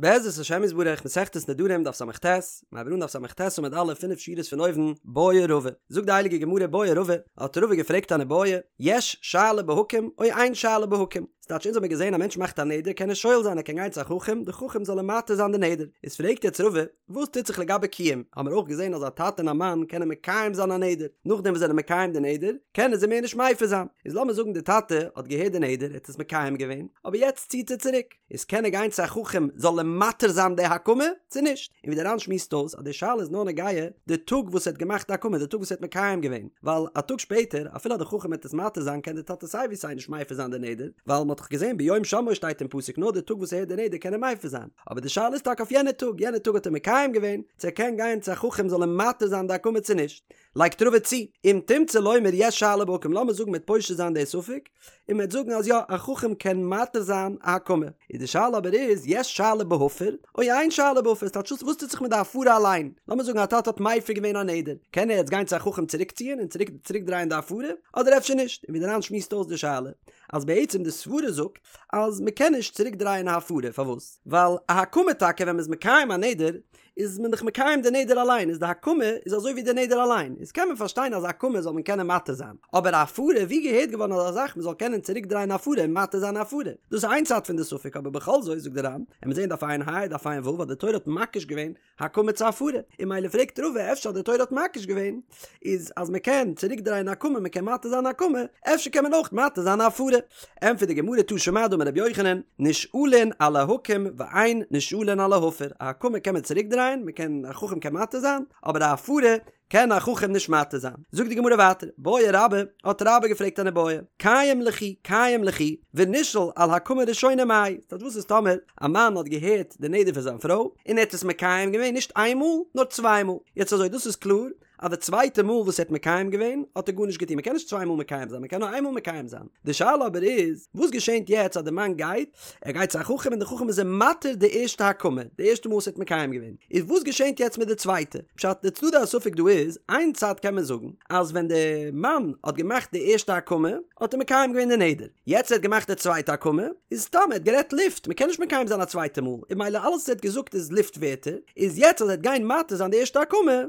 בעזרת השם יתברך, מסכת נדרים דף ס"ט, מ'הייבט אן דף ס"ט עמוד א', פינף שורות פון אויבן, בעי רבא. זאגט די הייליגע גמרא בעי רבא, האט רבא געפרעגט אן איבעיא, יש שאלה בהקם או אין שאלה בהקם? ס'טייטש אונז האמיר געזען א מענטש מאכט א נדר קען ער שואל זיין ער קען גיין צו א חכם, די חכם זאל אים מתיר זיין די נדר. איז פרעגט יעצט רבא, וואס טוט זיך לגבי קיום? האמיר אויך געזען אז א טאטע און א מאן קענען מקיים זיין א נדר, נאכדעם וואס זיי זענען מקיים די נדר, קענען זיי מער נישט מפר זיין. איז לאמיר זאגן די טאטע האט געהערט די נדר, ער האט עס מקיים געווען, אבער יעצט ציט ער צוריק. איז קען ער גיין צו א חכם זאל אים מתיר זיין די הקמה צו נישט? און ווי די ר"ן שמועסט אויס אז די שאלה איז נאר נוגע די טאג וואס ער האט געמאכט די הקמה די טאג וואס ער האט מקיים געווען ווייל א טאג שפעטער אפילו אז די חכם וועט עס מתיר זיין קען די טאטע סיי ווי סיי נישט מפר זיין די נדר ווייל מ'האט דאך געזען ביום שמעו שטייט אין פסוק נאר די טאג וואס ער הערט די נדר קען ער מפר זיין אבער די שאלה איז טאקע אויף יענע טאג יענע טאג האט ער מקיים געווען צו ער קען גיין צו א חכם זאל אים מתיר זיין די הקמה צו נישט לייגט רבא צו, אם תמצא לומר יש שאלה בהקם לאמיר זאגן מ'וועט פושט זיין די ספק, און מ'וועט זאגן אז יא, א חכם קען מתיר זיין א הקמה. איז די שאלה אבער איז, יש שאלה בהפר, או אין שאלה בהפר, ס'טייטש וואס טוט זיך מיט די הפרה אליין? לאמיר זאגן א טאטע האט מפר געווען א נדר, קען ער יעצט גיין צו א חכם צוריקציען און צוריק צוריקדרייען די הפרה, אדער אפשר נישט? און ווי די ר"ן שמועסט אויס די שאלה, אז בעצם די סברה זאגט אז מ'קען נישט צוריקדרייען א הפרה, פארוואס? ווייל א הקמה טאקע ווען מ'איז מקיים א נדר, איז מען דאך מקיים די נדר אליין, איז די הקמה איז אזוי ווי די נדר אליין, איז קען מען פארשטיין אז א הקמה זאל מען קענען מתיר זיין, אבער א הפרה, ווי געהערט געווארן אזא זאך מען זאל קענען צוריק דרייען א הפרה און מתיר זיין א הפרה, דאס איז איין צד פון די ספק, אבער בכל זאת זאגט די ר"ן, עמיר זעהן דף ע"ה דף ע"ו אז די תורה האט מקיש געווען הקמה צו הפרה, און ממילא פרעגט רבא אפשר אז די תורה האט מקיש געווען איז אז מען קען צוריק דרייען א הקמה מען קען מתיר זיין א הקמה, אפשר קען מען אויך מתיר זיין א הפרה. ענטפערט די גמרא תא שמע דאמר רבי יוחנן, נשאלין על ההקם ואין נשאלין על ההפר, א הקמה קען מען צוריק דרייען, מען קען, א חכם קען מתיר זיין, אבער א הפרה קען א חכם נישט מתיר זיין. זאגט די גמרא ווייטער, בעי רבה, האט רבה געפרעגט אן איבעיא, קיים ליכי, קיים ליכי, ונשאל על הקמה ראשונה מאי, ס'טייטש וואס איז טאמער א מאן האט געהערט די נדר פון זיין פרוי, און ער האט עס מקיים געווען נישט איין מאל, נאר צוויי מאל, יעצט אזוי דאס איז קלאר, אז די צווייטע מאל וואס ער האט מקיים געווען האט ער גארנישט געטון, מען קען נישט צוויי מאל מקיים זיין, מען קען נאר איין מאל מקיים זיין, די שאלה אבער איז, וואס געשענט יעצט אז די מאן גייט, ער גייט צו א חכם און די חכם איז אים מתיר די ערשטע הקמה, די ערשטע מאל וואס ער האט מקיים געווען, איז וואס געשענט יעצט מיט די צווייטע? פשט, די צדדי הספק דא איז, איין צד קען מען זאגן, אז ווען די מאן האט געמאכט די ערשטע הקמה, האט ער מקיים געווען די נדר, יעצט ער האט געמאכט די צווייטע הקמה, איז סתם ער האט גערעדט לופט, מען קען נישט מקיים זיין א צווייטע מאל, און ממילא אלעס וואס ער האט געזאגט איז לופט ווערטער, איז יעצט אז ער וועט גיין מתיר זיין די ערשטע הקמה,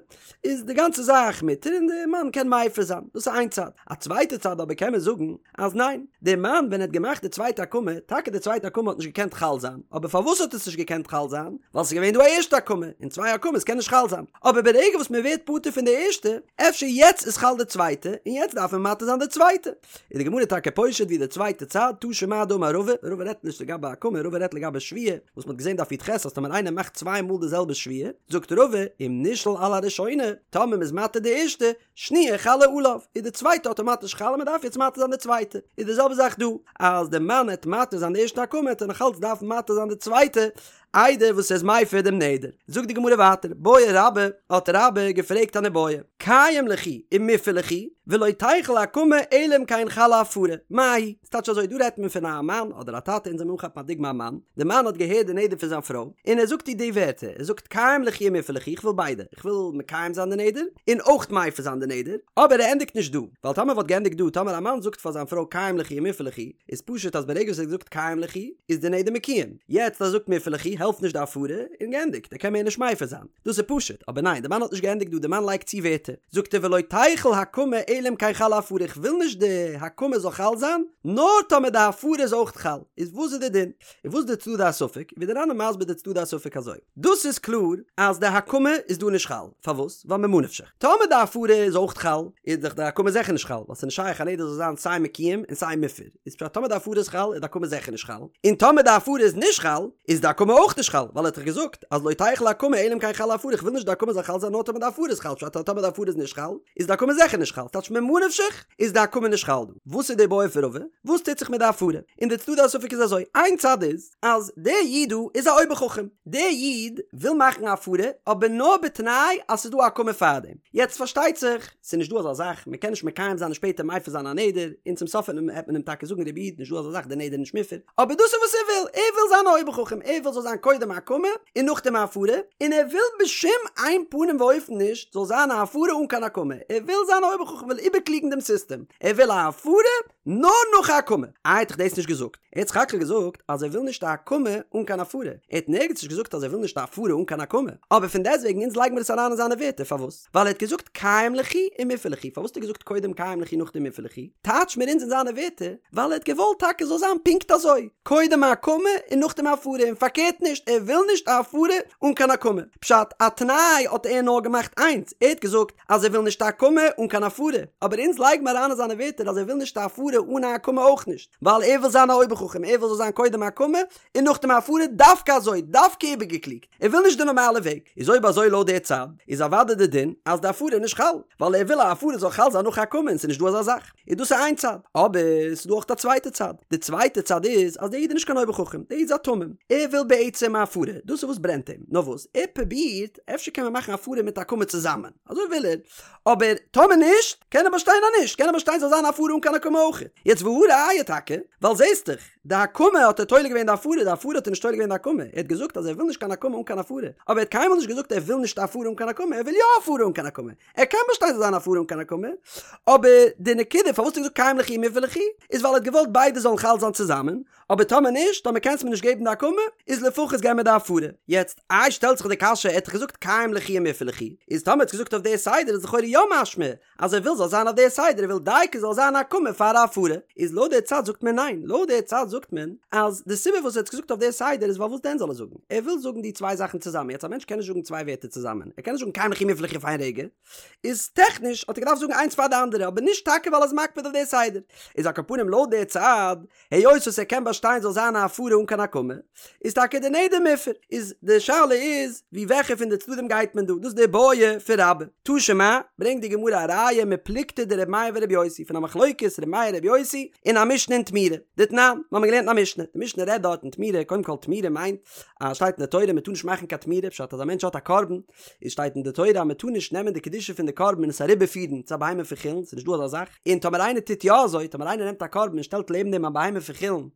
איז די גאנצע זאך מותר און די מאן קען מפר זיין, דאס איז איין צד, א צווייטע צד אבער קען מען זאגן אז ניין, די מאן ווען ער האט געמאכט די צווייטע הקמה, טאקע די צווייטע הקמה האט נישט געקענט חל זיין, אבער פארוואס האט עס נישט געקענט חל זיין? ווייל ס'איז געווען דא א ערשטע הקמה, און צוויי הקמות קען נישט חל זיין, אבער ברגע וואס מען ווערט פטור פון די ערשטע, אפשר יעצט איז חל די צווייטע, און יעצט דארף מען מתיר זיין די צווייטע. איז די גמרא טאקע פושט ווי די צווייטע צד, תא שמע דאמר רבא, רבא רעדט נישט לגבי הקמה, רבא רעדט לגבי שבועה, וואס מ'האט געזען דף י"ח אז טאמער איינער מאכט צוויי מאל די זעלבע שבועה, זאגט רבא, אם נשאל על הראשונה, טאמער מ'איז מתיר די ערשטע, שניה חלה עליו, איז די צווייטע אטאמאטיש חל און מ'דארף יעצט מתיר זיין די צווייטע. איז די זעלבע זאך דא, אז די מאן העט מתיר זיין די ערשטע הקמה העט ער נאכאלץ דארפן מתיר זיין די צווייטע, איידער וואס ער איז מפר דעם נדר. זאגט די גמרא ווייטער, בעי רבה, האט רבה געפרעגט אן איבעיא, קיים ליכי ומופר ליכי, ולא תיחול הקמה אלא אם כן חלה הפרה, מהו? ס'טייטש אזוי, דא רעדט מען פון א מאן אדער א טאטע, אונז וועלן אנכאפן א דוגמא א מאן, די מאן האט געהערט די נדר פון זיין פרוי, און ער זאגט איר די ווערטער, ער זאגט קיים ליכי ומופר ליכי, איך וויל ביידע, איך וויל מקיים זיין די נדר, און אויך מפר זיין די נדר, אבער ער ענדיגט נישט דא, ווייל טאמער וואלט געענדיגט דא, טאמער א מאן זאגט פאר זיין פרוי קיים ליכי ומופר ליכי, איז פשוט אז ברגע וואס ער האט געזאגט קיים ליכי, איז די נדר מקוים, יעצט אז ער זאגט מופר ליכי העלפט נישט די הפרה, און געענדיגט, ער קען מער נישט מפר זיין. דאס איז פשוט, אבער ניין, די מאן האט נישט געענדיגט דא, די מאן לייגט צו ווערטער, זאגט ער ולא תיחול הקמה אלא אם כן חלה הפרה, איך וויל נישט די הקמה זאל חל זיין, נאר טאמער די הפרה איז אויך חל, איז וואס איז די דין? און וואס איז די צדדי הספק? ווי די ר"ן איז מסביר די צדדי הספק אזוי, דאס איז קלאר אז די הקמה איז דא נישט חל, פארוואס? ווייל ממה נפשך, טאמער די הפרה איז אויך חל, איז דאך די הקמה זיכער נישט חל, ווייל ס'איז נישט שייך א נדר זאל זיין סיי מקוים און סיי מופר. איז פשט טאמער די הפרה איז חל איז די הקמה זיכער נישט חל, און טאמער די הפרה איז נישט חל איז די הקמה אויך נישט חל, ווייל ער האט דאך געזאגט אז לא תיחול הקמה אלא אם כן חלה הפרה איך וויל נישט די הקמה זאל חל זיין נאר טאמער די הפרה איז חל פשט אז טאמער די הפרה איז נישט חל איז די הקמה זיכער נישט חל טייטש ממה נפשך איז די הקמה נישט חל דא וואס איז די בעיא פון רבא? וואס טוט זיך מיט די הפרה? און די צדדי הספק איז אזוי איין צד איז אז דער איד דא איז א אויבער חכם דער איד וויל מאכן א הפרה אבער נאר בתנאי אז ס'איז דא א הקמה פארדעם יעצט פארשטייט זיך ס'איז נישט דא אזא זאך, מ'קען נישט מקיים זיין און שפעטער מפר זיין א נדר, און צום סוף וועט מען אים טאקע זאגן רבי איד, נישט דא אזא זאך די נדר איז נישט מופר, אבער דאס איז וואס ער וויל, ער וויל זיין א אויבער חכם, ער וויל זאל זיין קודם א הקמה און נאכדעם א הפרה, און ער וויל בשום אין פנים ואופן נישט זאל זיין א הפרה אן קיין הקמה, ער וויל זיין א אויבער חכם, וויל איבערקליגן דעם סיסטעם, ער וויל א הפרה נאר נאך א הקמה, איי האט דאך דאס נישט געזאגט. ער האט סך הכל געזאגט אז ער וויל נישט א הקמה אן קיין הפרה, ער האט נערגעץ נישט געזאגט אז ער וויל נישט א הפרה אן קיין הקמה, אבער פון דעסטוועגן אונז לייגן מיר עס אריין אין זיינע ווערטער, פארוואס? ווייל ער האט געזאגט קיים ליכי ומפר ליכי, פארוואס האט ער געזאגט קודם קיים ליכי נאכדעם מפר ליכי? טייטש מיר אונז אין זיינע ווערטער, ווייל ער האט געוואלט טאקע זאל זיין פונקט אזוי, קודם א הקמה און נאכדעם א הפרה, און פארקערט נישט, ער וויל נישט א הפרה אן קיין הקמה. פשט, א תנאי האט ער נאר געמאכט איינס, ער האט געזאגט אז ער וויל נישט א הקמה אן קיין הפרה, אבער אונז לייג מיר אריין אין זיינע ווערטער אז ער וויל נישט א הפרה אן א הקמה אויך נישט, ווייל ער וויל זיין א אויבער חכם, ער וויל זאל זיין קודם הקמה און נאכדעם הפרה, דווקא אזוי, דווקא איבערגעקלוגט, ער וויל נישט די נארמאלע וועג, איז אויב אזוי לויט די צד, איז אוודאי די דין אז די הפרה איז נישט חל, ווייל ער וויל א הפרה זאל חל זיין נאך הקמה און ס'איז נישט דא אזא זאך. איז דאס איז איין צד, אבער ס'איז דא אויך א צווייטע צד, די צווייטע צד איז אז דער איד איז נישט קיין אויבער חכם, דער איד איז א תמים, ער וויל בעצם א הפרה, דאס איז וואס ברענט אים, נאר וואס, ער פרובירט, אפשר קען מען מאכן הפרה מיט הקמה צוזאמען, אזוי וויל ער, אבער טאמער נישט, קען ער באשטיין אז נישט, קען ער באשטיין ס'זאל זיין הפרה אן קיין הקמה אויך. יעצט והא ראיה טאקע, ווייל זעסט דאך, די הקמה האט ער תולה געווען די הפרה, די הפרה האט ער נישט תולה געווען די הקמה, ער האט געזאגט אז ער וויל נישט קיין הקמה אן קיין הפרה, אבער ער האט קיינמאל נישט געזאגט ער וויל נישט הפרה אן קיין הקמה, ער וויל יא הפרה אן קיין הקמה, ער קען באשטיין זאל זיין הפרה אן קיין הקמה, אבער די נקודה פארוואס האט ער געזאגט קיים ליכי ומפר ליכי, איז ווייל ער האט געוואלט ביידע זאלן חל זיין צוזאמען, אבער טאמער נישט, טאמער קענסט מיר נישט געבן די הקמה, איז לפחות געב מיר די הפרה. יעצט, איי שטעלט זיך די קשיא, ער האט דאך געזאגט קיים ליכי ומפר ליכי, איז טאמער ער האט געזאגט אויף די סדר איז לכאורה יא משמע אז ער וויל זאל זיין אויף די סדר, ער וויל דייקא זאל זיין הקמה פאר א הפרה, איז לויט די צד זאגט מען ניין, לויט די צד זאגט מען אז די סיבה וואס ער האט געזאגט אויף די סדר איז ווייל וואס דען זאל ער זאגן? ער וויל זאגן די צוויי זאכן צוזאמען, יעצט א מענטש קען נישט זאגן צוויי ווערטער צוזאמען, ער קען נישט זאגן קיים ליכי ומפר ליכי אויף איין רגע, איז טעכניש האט ער געדארפט זאגן איינס פאר די אנדערע, אבער נישט טאקע ווייל ער איז מקפיד אויף די סדר. איז על כל פנים לויט די צד, היות וואס ער קען באשטיין זאל זיין א הפרה אן קיין הקמה, איז טאקע די נדר מופר. איז די שאלה איז, ווי וועלכע פון די צדדים גייט מען דא? דאס איז די בעיא פון רבה. תא שמע, ברענגט די גמרא א ראיה מפלוגתא דר' מאיר ור' יוסי, פון א מחלוקת ר' מאיר ר' יוסי אין א משנה אין תמורה. דתנן, מיר האבן געלערנט אין א משנה, די משנה רעדט דארט אין תמורה, קודם כל תמורה מיינט אז שטייט אין די תורה מען טאר נישט מאכן קיין תמורה, פשט אז א מענטש האט א קרבן, איז שטייט אין די תורה אז מען טאר נישט נעמען די קדושה פון די קרבן און עס אריבערפירן צו א בהמה פון חולין, ס'איז נישט דא אזא זאך, און טאמער איינער טוט יא אזוי, טאמער איינער נעמט א קרבן און שטעלט לעבן דעם א בהמה פון חולין,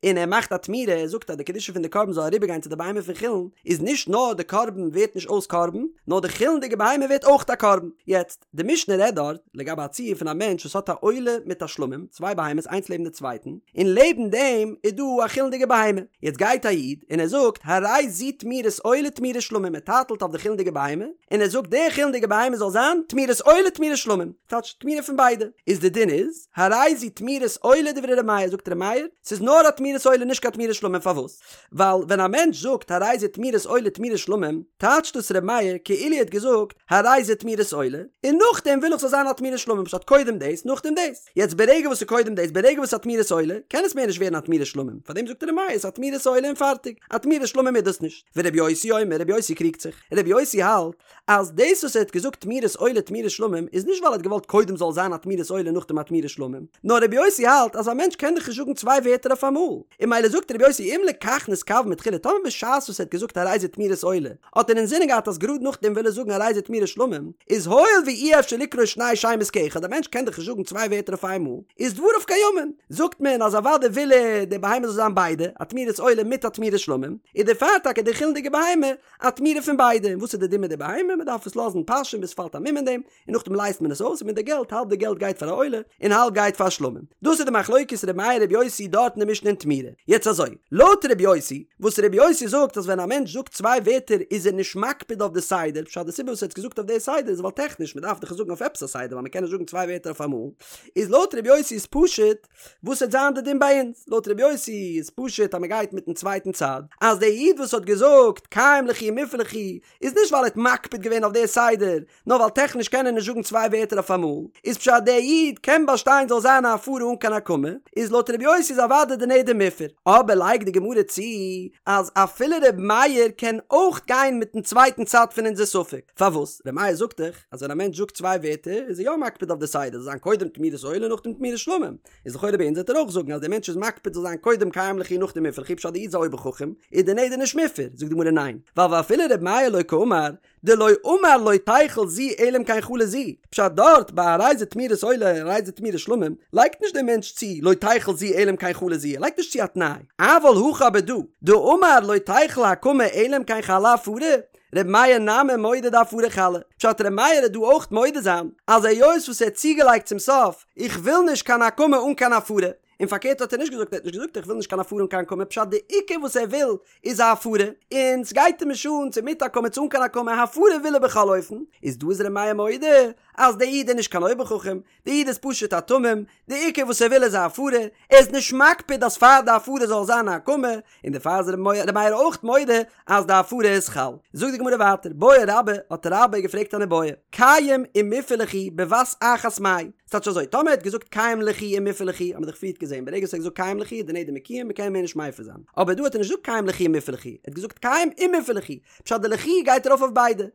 און ער מאכט א תמורה, ער זאגט אז די קדושה פון די קרבן זאל אריבערגיין צו די בהמה פון חולין, איז נישט נאר די קרבן ווערט נישט אויס קרבן, נאר די חולין'דיגע בהמה ווערט אויך א קרבן. יעצט, די משנה רעדט דארט לגבי א ציור פון א מענטש וואס האט א עולה מיט א שלמים, צוויי בהמות איינס לעבן די צווייטן, און לעבן דעם איז דא א חולין'דיגע בהמה. יעצט גייט א איד און ער זאגט, הרי זו תמורת עולה תמורת שלמים, ער טייטלט אויף די חולין'דיגע בהמה, און ער זאגט די חולין'דיגע בהמה זאל זיין תמורת עולה תמורת שלמים, טייטש תמורה פון ביידע. איז די דין איז, הרי זו תמורת עולה דברי ר' מאיר, זאגט ר' מאיר, ס'איז נאר א תמורת עולה נישט קיין תמורת שלמים, פארוואס? ווייל ווען א מענטש זאגט הרי זה תמורת עולה תמורת שלמים, טייטשט דאס ר' מאיר כאילו ער האט געזאגט הרי זה תמורת עולה, און נאכדעם וויל איך ס'זאל זיין א תמורת שלמים, פשט קודם דאס נאכדעם דאס. יעצט ברגע וואס ס'איז קודם דאס, ברגע וואס ס'איז א תמורת עולה, קען עס מער נישט ווערן א תמורת שלמים, פארדעם זאגט ר' מאיר ס'איז א תמורת עולה און פארטיג, א תמורת שלמים איז דאס נישט. ור' יוסי אומר, ר' יוסי קריגט זיך, ר' יוסי האלט אז דאס וואס ער האט געזאגט תמורת עולה תמורת שלמים איז נישט ווייל ער האט געוואלט קודם זאל זיין א תמורת עולה נאכדעם א תמורת שלמים, נאר רבי יוסי האלט אז א מענטש קען דאך נישט זאגן צוויי ווערטער אויף אמאל, און ממילא זאגט רבי יוסי אם לכך נתכוון מתחילה טאמער בשעת וואס ער האט געזאגט הרי זה תמורת עולה האט ער אינזינען געהאט אז גראד נאכדעם וויל ער זאגן הרי זה תמורת שלמים, איז הואיל ואי אפשר לקרוא שני שמות כאחד א מענטש קען דאך נישט זאגן צוויי ווערטער אויף איינמאל, איז דבריו קיימין, זאגט מען אז אוודאי וויל ער די בהמה זאל זיין ביידע, א תמורת עולה מיט א תמורת שלמים, איז דערפאר טאקע די חולין'דיגע בהמה א תמורה פון ביידע, און וואס איז די דין מיט די בהמה? מען דארף עס לאזן פאשען ביז ס'פאלט א מום אין דעם, און נאכדעם לייזט מען עס אויס, און מיט די געלט, האלב די געלט גייט פאר א עולה, און האלב גייט פאר שלמים. דאס איז די מחלוקת ר' מאיר ר' יוסי דארט אין די משנה אין תמורה. יעצט אזוי, לויט ר' יוסי, וואס ר' יוסי זאגט אז ווען א מענטש זאגט צוויי ווערטער איז ער נישט מקפיד אויף די סדר, פשט די סיבה וואס ער האט געזאגט אויף די סדר איז ווייל טעכניש מען דארף דאך עס זאגן אויף עפעס א סדר ווייל מען קען נישט זאגן צוויי ווערטער אויף אמאל, איז לויט ר' יוסי איז פשוט, וואס וועט זיין די דין ביי אונז? לויט ר' יוסי איז פשוט אז מען גייט מיטן צווייטן צד, אז דער איד וואס האט געזאגט קיים ליכי ומפר ליכי איז נישט ווייל ער האט מקפיד געווען אויף די סדר, נאר ווייל טעכניש קען ער נישט זאגן צוויי ווערטער אויף אמאל, איז פשט דער איד קען באשטיין זאל זיין א הפרה אן קיין הקמה, איז לויט ר' יוסי איז אוודאי די נדר מופר. אבער לייגט די גמרא צו אז אפילו ר' מאיר קען אויך גיין מיטן צווייטן צד פון אונזער ספק, פארוואס? ר' מאיר זאגט דאך אז ווען א מענטש זאגט צוויי ווערטער איז ער יא מקפיד אויף די סדר זאל זיין קודם תמורת עולה נאכדעם תמורת שלמים, איז לכאורה ביי אונז וועט ער אויך זאגן אז דער מענטש איז מקפיד זאל זיין קודם קיים ליכי נאכדעם מפר ליכי פשט די איד איז א אויבער חכם איז די נדר נישט מופר, זאגט די גמרא ניין ווייל ואפילו ר' מאיר לא קאמר דלא אמר לא תיכול זו אלא אם כן חלה זו, פשט דארט ביי הרי זה תמורת עולה הרי זה תמורת שלמים לייגט נישט דער מענטש צו לא תיכול זו אלא אם כן חלה זו ער לייגט נישט צו א תנאי, אבל הכא אבער דא דאמר לא תיכול הקמה אלא אם כן חלה הפרה, ר' מאיר נמי מודה דהפרה חלה, פשט ר' מאיר וועט דא אויך מודה זיין אז היות וואס ער האט צוגעלייגט צום סוף איך וויל נישט קיין הקמה אן קיין הפרה. און פארקערט האט ער נישט געזאגט, ער האט נישט געזאגט איך וויל נישט קיין הפרה אן קיין הקמה, פשט די עיקר וואס ער וויל איז א הפרה, און סגייט אים נישט אן צו מיט הקמה צו אן קיין הקמה, הפרה וויל ער בכל אופן, איז דא איז ר' מאיר מודה אז דער איד איז נישט קיין אויבער חכם, די איד איז פשוט א תמים, די עיקר וואס ער וויל איז א הפרה, ער איז נישט מקפיד אז פאר די הפרה זאל זיין א הקמה, און דערפאר איז ר' מאיר אויך מודה אז די הפרה איז חל. זאגט די גמרא ווייטער, בעי רבה, האט רבה געפרעגט אן איבעיא, קיים ומופר ליכי בבת אחת מאי, ס'טייטש אזוי, טאמער ער האט געזאגט קיים ליכי ומופר ליכי, האט מען דאך פריערט געזען, ברגע וואס ער האט געזאגט קיים ליכי איז די נדר מקוים, מ'קען מער נישט מפר זיין. אבער דא האט ער נישט געזאגט קיים ליכי ומופר ליכי, ער האט געזאגט קיים ומופר ליכי, פשט די ליכי גייט ארויף אויף ביידע.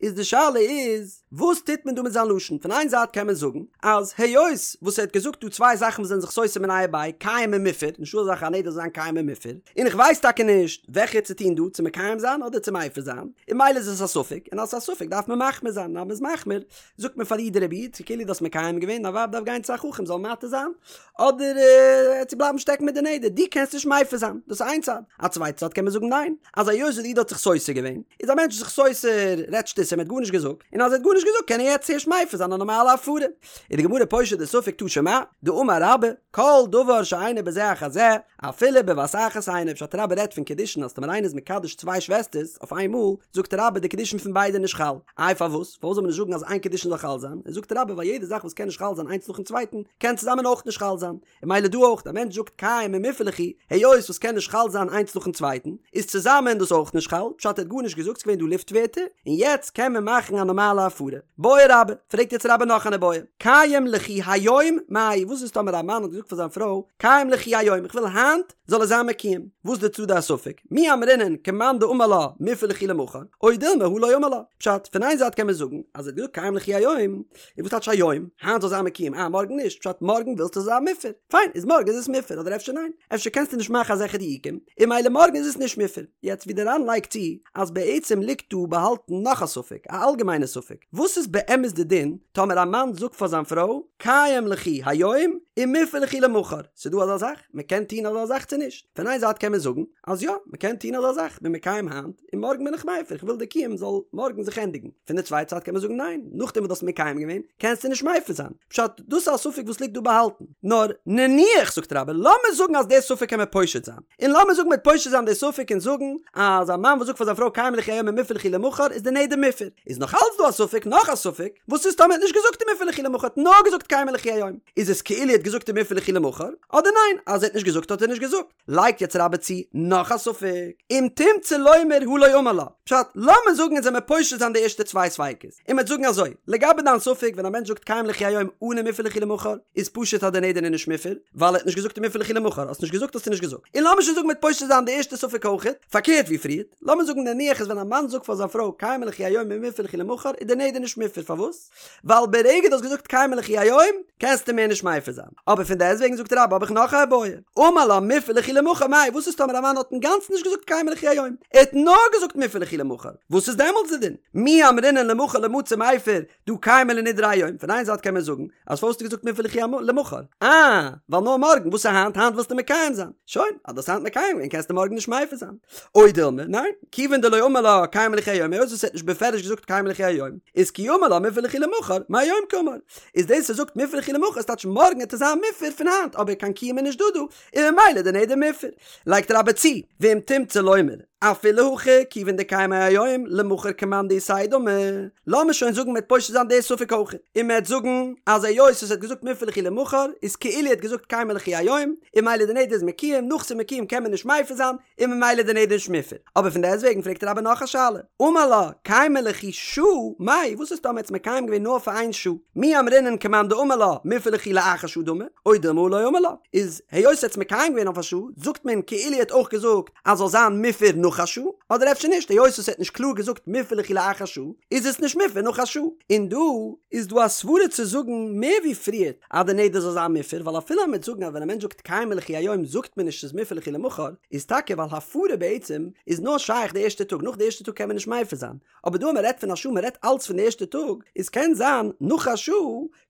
איז די שאלה איז, וואס טוט מען דא מיט זיין לשון? פון איין זייט קען מען זאגן אז היות וואס ער האט געזאגט דא צוויי זאכן וואס זענען זיך סותר מיניה וביה, קיים און מופר, נישטא אזא זאך א נדר זאל זיין קיים און מופר, און איך ווייס טאקע נישט וועלכע צו טון דא, צו מקיים זיין אדער צו מפר זיין, און ממילא איז עס א ספק, און אז עס איז א ספק דארף מען מחמיר זיין, און אז מען איז מחמיר זאגט מען פאר איר דער רבי איד, כאילו דו האסט מקיים געווען, דיין ווייב דארף גיין צו א חכם זאל מתיר זיין, אדער צו בלייבן שטעקן מיט די נדר, דו קענסט נישט מפר זיין, דאס איז איין צד, א צווייטע צד קען מען זאגן ניין, אז היות וואס די איד האט זיך סותר געווען, איז א מענטש זיך סותר, רעדט שטותים, ער האט גארנישט געזאגט, און אז ער האט גארנישט געזאגט קען ער יעצט הערשט מפר זיין א נארמאלע הפרה. איז די גמרא פושט די ספק תא שמע, דאמר רבה, כל דבר שאינו בזה אחר זה, אפילו בבת אחת אינו, פשט רבה רעדט פון קידושין אז טאמער איינער איז מקדש צוויי שוועסטערס אויף איין מאל, זאגט רבה די קידושין פון ביידע נישט חל, איי פארוואס? פארוואס זאל מען נישט זאגן אז איין קידושין זאל חל זיין? זאגט רבה ווייל יעדע זאך וואס קען נישט חל זיין איינס נאכן צווייטן קען צוזאמען אויך נישט חל זיין, און ממילא דא אויך, א מענטש זאגט קיים ומופר ליכי, היות וואס קען נישט חל זיין איינס נאכן צווייטן, איז צוזאמען דאס אויך נישט חל, פשט ער האט גארנישט געזאגט ס'געווען דא לופט ווערטער, און יעצט קען מען מאכן א נארמאלע הפרה. בעי רבה, פרעגט יעצט רבה נאך אן איבעיא, קיים ליכי היום מאי, וואס איז טאמער א מאן האט געזאגט פאר זיין פרוי, קיים ליכי היום, איך וויל היינט זאל עס זיין מקוים, וואס די צדדי הספק, מי אמרינן כמאן דאמר לה מופר ליכי למחר, או דילמא הא לא אמר לה, פשט, פון איין זייט קען מען זאגן, אז ער האט געזאגט קיים ליכי היום, און וואס טייטש היום? היינט זאל זיין מקוים, אה מארגן נישט, פשט מארגן ווילסטו עס זאל זיין מופר, פיין איז מארגן איז עס מופר, אדער אפשר ניין, אפשר קענסטו נישט מאכן אזעלכע דיוקים, און ממילא מארגן איז עס נישט מופר. יעצט ווי די ר"ן לייגט צו, אז בעצם ליגט דא באהאלטן נאך א ספק, א אלגעמיינע ספק, וואס איז באמת די דין טאמער א מאן זאגט פאר זיין פרוי, קיים ליכי היום ומופר ליכי למחר, ס'דא אזא זאך? מ'קען טון אזא זאך צו נישט? פון איין זייט קען מען זאגן אז יא, מ'קען טון אזא זאך, כ'בין מקיים היינט, און מארגן בין איך מפר, איך וויל די קיום זאל מארגן זיך ענדיגן. פון די צווייטע זייט קען מען זאגן ניין, נאכדעם וואס דו האסט מקיים געווען, קענסטו נישט מפר זיין. פשט, דאס איז א ספק וואס ליגט דא באהאלטן. נאר, נניח, זאגט רבה, לאמיר זאגן אז די ספק קען מען פושט זיין. און לאמיר זאגן מ'וועט פושט זיין די ספק און זאגן אז א מאן וואס זאגט פאר זיין פרוי קיים ליכי היום ומופר ליכי למחר איז די נדר מופר. איז נאך אלץ דא א ספק, נאך א ספק, וואס איז טאמער ער האט נישט געזאגט ומופר ליכי למחר, האט נאר געזאגט קיים ליכי היום, איז עס כאילו ער האט געזאגט ומופר ליכי למחר, אדער ניין, אז ער האט נישט געזאגט האט ער נישט געזאגט. לייגט יעצט רבה צו נאך א ספק, אם תמצא לומר הא לא אמר לה, פשט, לאמיר זאגן אונז וועמיר פושט זיין די ערשטע צוויי ספיקות, און מ'וועט זאגן אזוי, לגבי דיין ספק ווען א מענטש זאגט קיים ליכי היום אן ומופר ליכי למחר, איז פשוט אז די נדר איז נישט מופר, ווייל ער האט נישט געזאגט ומופר ליכי למחר, האסט נישט געזאגט האסטו נישט געזאגט. און לאמיר שוין זאגן מ'וועט פושט זיין די ערשטע ספק אויכעט, פארקערט ווי פריערט, לאמיר זאגן נניח אז ווען א מאן זאגט פאר זיין פרוי קיימא ליכי היום ומופר ליכי למחר איז די נדר נישט מופר, פארוואס? ווייל ברגע דו האסט געזאגט קיימא ליכי היום קענסטו מער נישט מפר זיין. אבער פון דעסטוועגן זאגט רבה האב איך נאך א איבעיא, אמר לה מופר ליכי למחר מאי, וואס איז טאמער א מאן האט אינגאנצן נישט געזאגט קיימא ליכי היום, ער האט נאר געזאגט מופר ליכי למחר, וואס איז דעמאלטס די דין? מי אמרינן למחר לא מצי מיפר דהא קיימא ליה נדריה היום, פון איין זייט קען מען זאגן אז פארוואס האסטו געזאגט מופר ליכי למחר? אה, ווייל נאר מארגן, וואס איז היינט? היינט ווילסטו מקיים זיין. שוין, אז דו האסט היינט מקיים געווען קענסטו מארגן נישט מפר זיין. או דילמא, ניין, כיוון דלא אמר לה קיימא ליכי היום, היות וואס ער האט נישט בפירוש געזאגט קיימא ליכי היום, איז כי אמר לה מופר ליכי למחר, מהיום קאמר. איז דאס ער זאגט מופר ליכי למחר איז טייטש מארגן וועט עס זיין מופר פון היינט, אבער קיין קיום איז נישט דא דא, און ממילא די נדר מופר. לייגט רבה צו, ואם תמצא לומר, אפילו הכי כיוון דקיימיה היום למחר כמאן דאיתיה דמי, לאמיר שוין זאגן מ'וועט פושט זיין די ספק אויך, און מ'וועט זאגן אז היות ער האט געזאגט מופר ליכי למחר איז כאילו ער האט געזאגט קיימא ליכי היום, און ממילא די נדר איז מקוים, נאך ס'איז מקוים קען מען נישט מפר זיין, און ממילא די נדר נישט מופר. אבער פון דעסטוועגן פרעגט רבה נאך א שאלה, אמר לה, קיימא ליכי שעה, מאי, וואס איז טאמער ער האט עס מקיים געווען נאר פאר איין שעה? מי אמרינן כמאן דאמר לה, מופר ליכי לאחר שעה דמי, או דילמא הא לא אמר לה, איז היות ער האט עס מקיים געווען אויף א שעה, זאגט מען כאילו ער האט אויך געזאגט אז זאל זיין מופר נאך א שעה, אדער אפשר נישט, היות ער האט נישט קלאר געזאגט מופר ליכי לאחר שעה, איז עס נישט מופר נאך א שעה. און דא איז דא א סברה צו זאגן מער ווי פריערט אז די נדר זאל זיין מופר, ווייל אפילו אז מ'וועט זאגן אז ווען א מענטש זאגט קיימא ליכי היום זאגט מען נישט ס'איז מופר ליכי למחר, איז טאקע ווייל הפרה בעצם איז נאר שייך די ערשטע טאג, נאך די ערשטע טאג קען מען נישט מפר זיין, אבער דא אז מ'רעדט פון א שעה מ'רעדט אלץ פון די ערשטע טאג, איז קען זיין נאך א שעה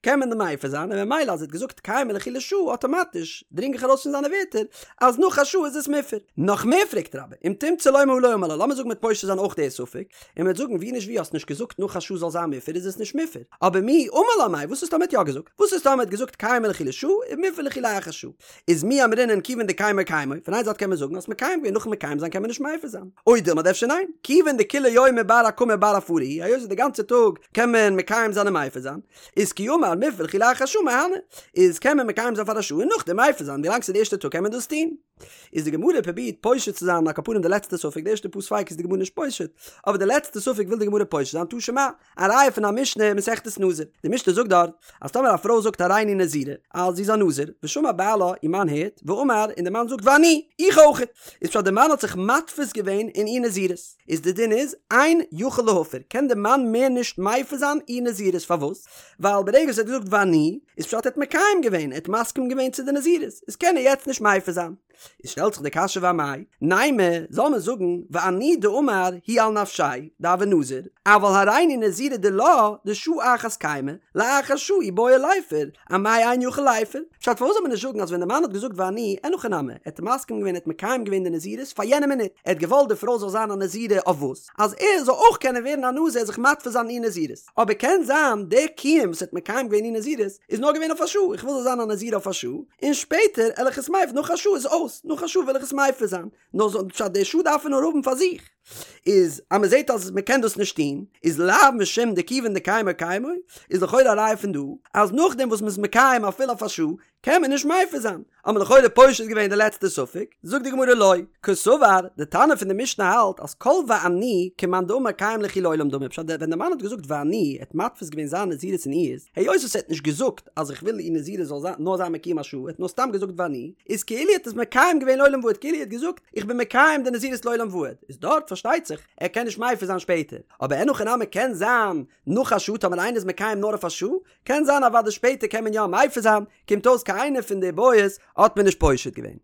קען מען מפר זיין און ממילא אז ער האט געזאגט קיימא ליכי לשעה אטאמאטיש דרינג איך ארויס פון זיינע ווערטער אז נאך א שעה איז עס מופר. נאך מער פרעגט רבה, אם תמצא. רוצה לומר הא לא אמר לה, לאמיר זאגן מ'וועט פושט זיין אויך די ספק, און מ'וועט זאגן ווי נישט ווי האסט נישט געזאגט נאך א שעה זאל זיין מופר איז עס נישט מופר, אבער מיהו אמר לה מאי וואס איז טאמער האט יא געזאגט? וואס איז טאמער האט געזאגט קיימי ליכי לשעה ומופר ליכי לאחר שעה? איז מי אמרינן כיוון דקיימו קיימו, פון איין זייט קען מען זאגן האסט מקיים געווען נאכן מקיים זיין קען מען נישט מפר זיין, או דילמא אדער אפשר ניין, כיוון דכולי יומא בר הקמה בר הפרה הוא, היות וואס די גאנצע טאג קען מען מקיים זיין און מפר זיין, איז כי אמר מופר ליכי לאחר שעה מהני, איז קען מען מקיים זיין פאר א שעה און נאכדעם מפר זיין ווילאנג ס'איז די ערשטע טאג קען מען דאס טון. איז די גמרא פרובירט פושט צו זיין על כל פנים די לעצטע ספק, די ערשטע פאר ספיקות איז די גמרא נישט פושט, אבער די לעצטע ספק וויל די גמרא פושט זיין תא שמע, א ראיה פון א משנה אין מסכת נזיר, די משנה זאגט דארט אז טאמער א פרוי זאגט הריני נזירה אז זי איז א נזיר, ושמע בעלה, איר מאן הערט, ואמר, און די מאן זאגט ואני, איך אויכעט, איז פשט די מאן האט זיך מתפיס געווען אין איר נזירות, איז די דין איז, אין יכול להפר, קען די מאן מער נישט מפר זיין איר נזירות, פארוואס? ווייל ברגע וואס ער האט געזאגט ואני, איז פשט ער האט מקיים געווען, ער האט מסכים געווען צו די נזירות, איז קען ער יעצט נישט מפר זיין. איז שטעלט זיך די קשיא ואמאי, נימא, זאל מען זאגן, ואני דאמר הוא על נפשיה, דהוי נזיר, אבל הריני נזירה דילה, דשעה אחת קיימא, לאחר שעה אי בעי ליפר, אמאי אין יכול ליפר? פשט פארוואס זאל מען נישט זאגן אז ווען די מאן האט געזאגט ואני, אין הכי נמי, ער האט מסכים געווען ער האט מקיים געווען די נזירות פאר יענע מינוט, ער האט געוואלט די פרוי זאל זיין א נזירה אויף וואס? אז ער זאל אויך קענען ווערן א נזיר זיך מתפיס זיין אין איר נזירות, אבער קען זיין די קיום וואס ער האט מקיים געווען איר נזירות איז נאר געווען אויף א שעה, איך וויל זאל זיין א נזירה אויף א שעה, און שפעטער על איך עס מפר, נאך א שעה איז אויס, נאך א שעה וויל איך עס מפר זיין, נאר זאל פשט די שעה דארף ער נאר האבן פאר זיך, איז אז מען זעט אז מען קען דאס נישט טון, איז לאו משום דכיון דקיימו קיימו, איז לכאורה א ראיה פון דא, אז נאכדעם וואס מען איז מקיים אפילו אויף א שעה, קען מען נישט מפר זיין, האט מען לכאורה פושט געווען די לעצטע ספק, זאגט די גמרא לא, קסבר, די תנא פון די משנה האלט אז כל ואני כמאן דאמר קיים ליכי לעולם דמי, פשט ווען די מאן האט געזאגט ואני, ער האט מתפיס געווען זיין נזירות אין איהר'ס, היות וואס ער האט נישט געזאגט אז איך וויל איר נזירות זאל זיין נאר זיין מקוים א שעה, ער האט נאר סתם געזאגט ואני, איז כאילו ער האט עס מקיים געווען לעולם ועד, כאילו ער האט געזאגט איך בין מקיים די נזירות לעולם ועד, איז דארט פארשטייט זיך ער קען נישט מפר זיין שפעטער, אבער אין הכי נמי קען זיין נאך א שעה טאמער איינער איז מקיים נאר אויף א שעה, קען זיין אוודאי שפעטער קען מען יא מפר זיין, קומט אויס קיין איינע פון די בעיות האט מען נישט פושט געווען.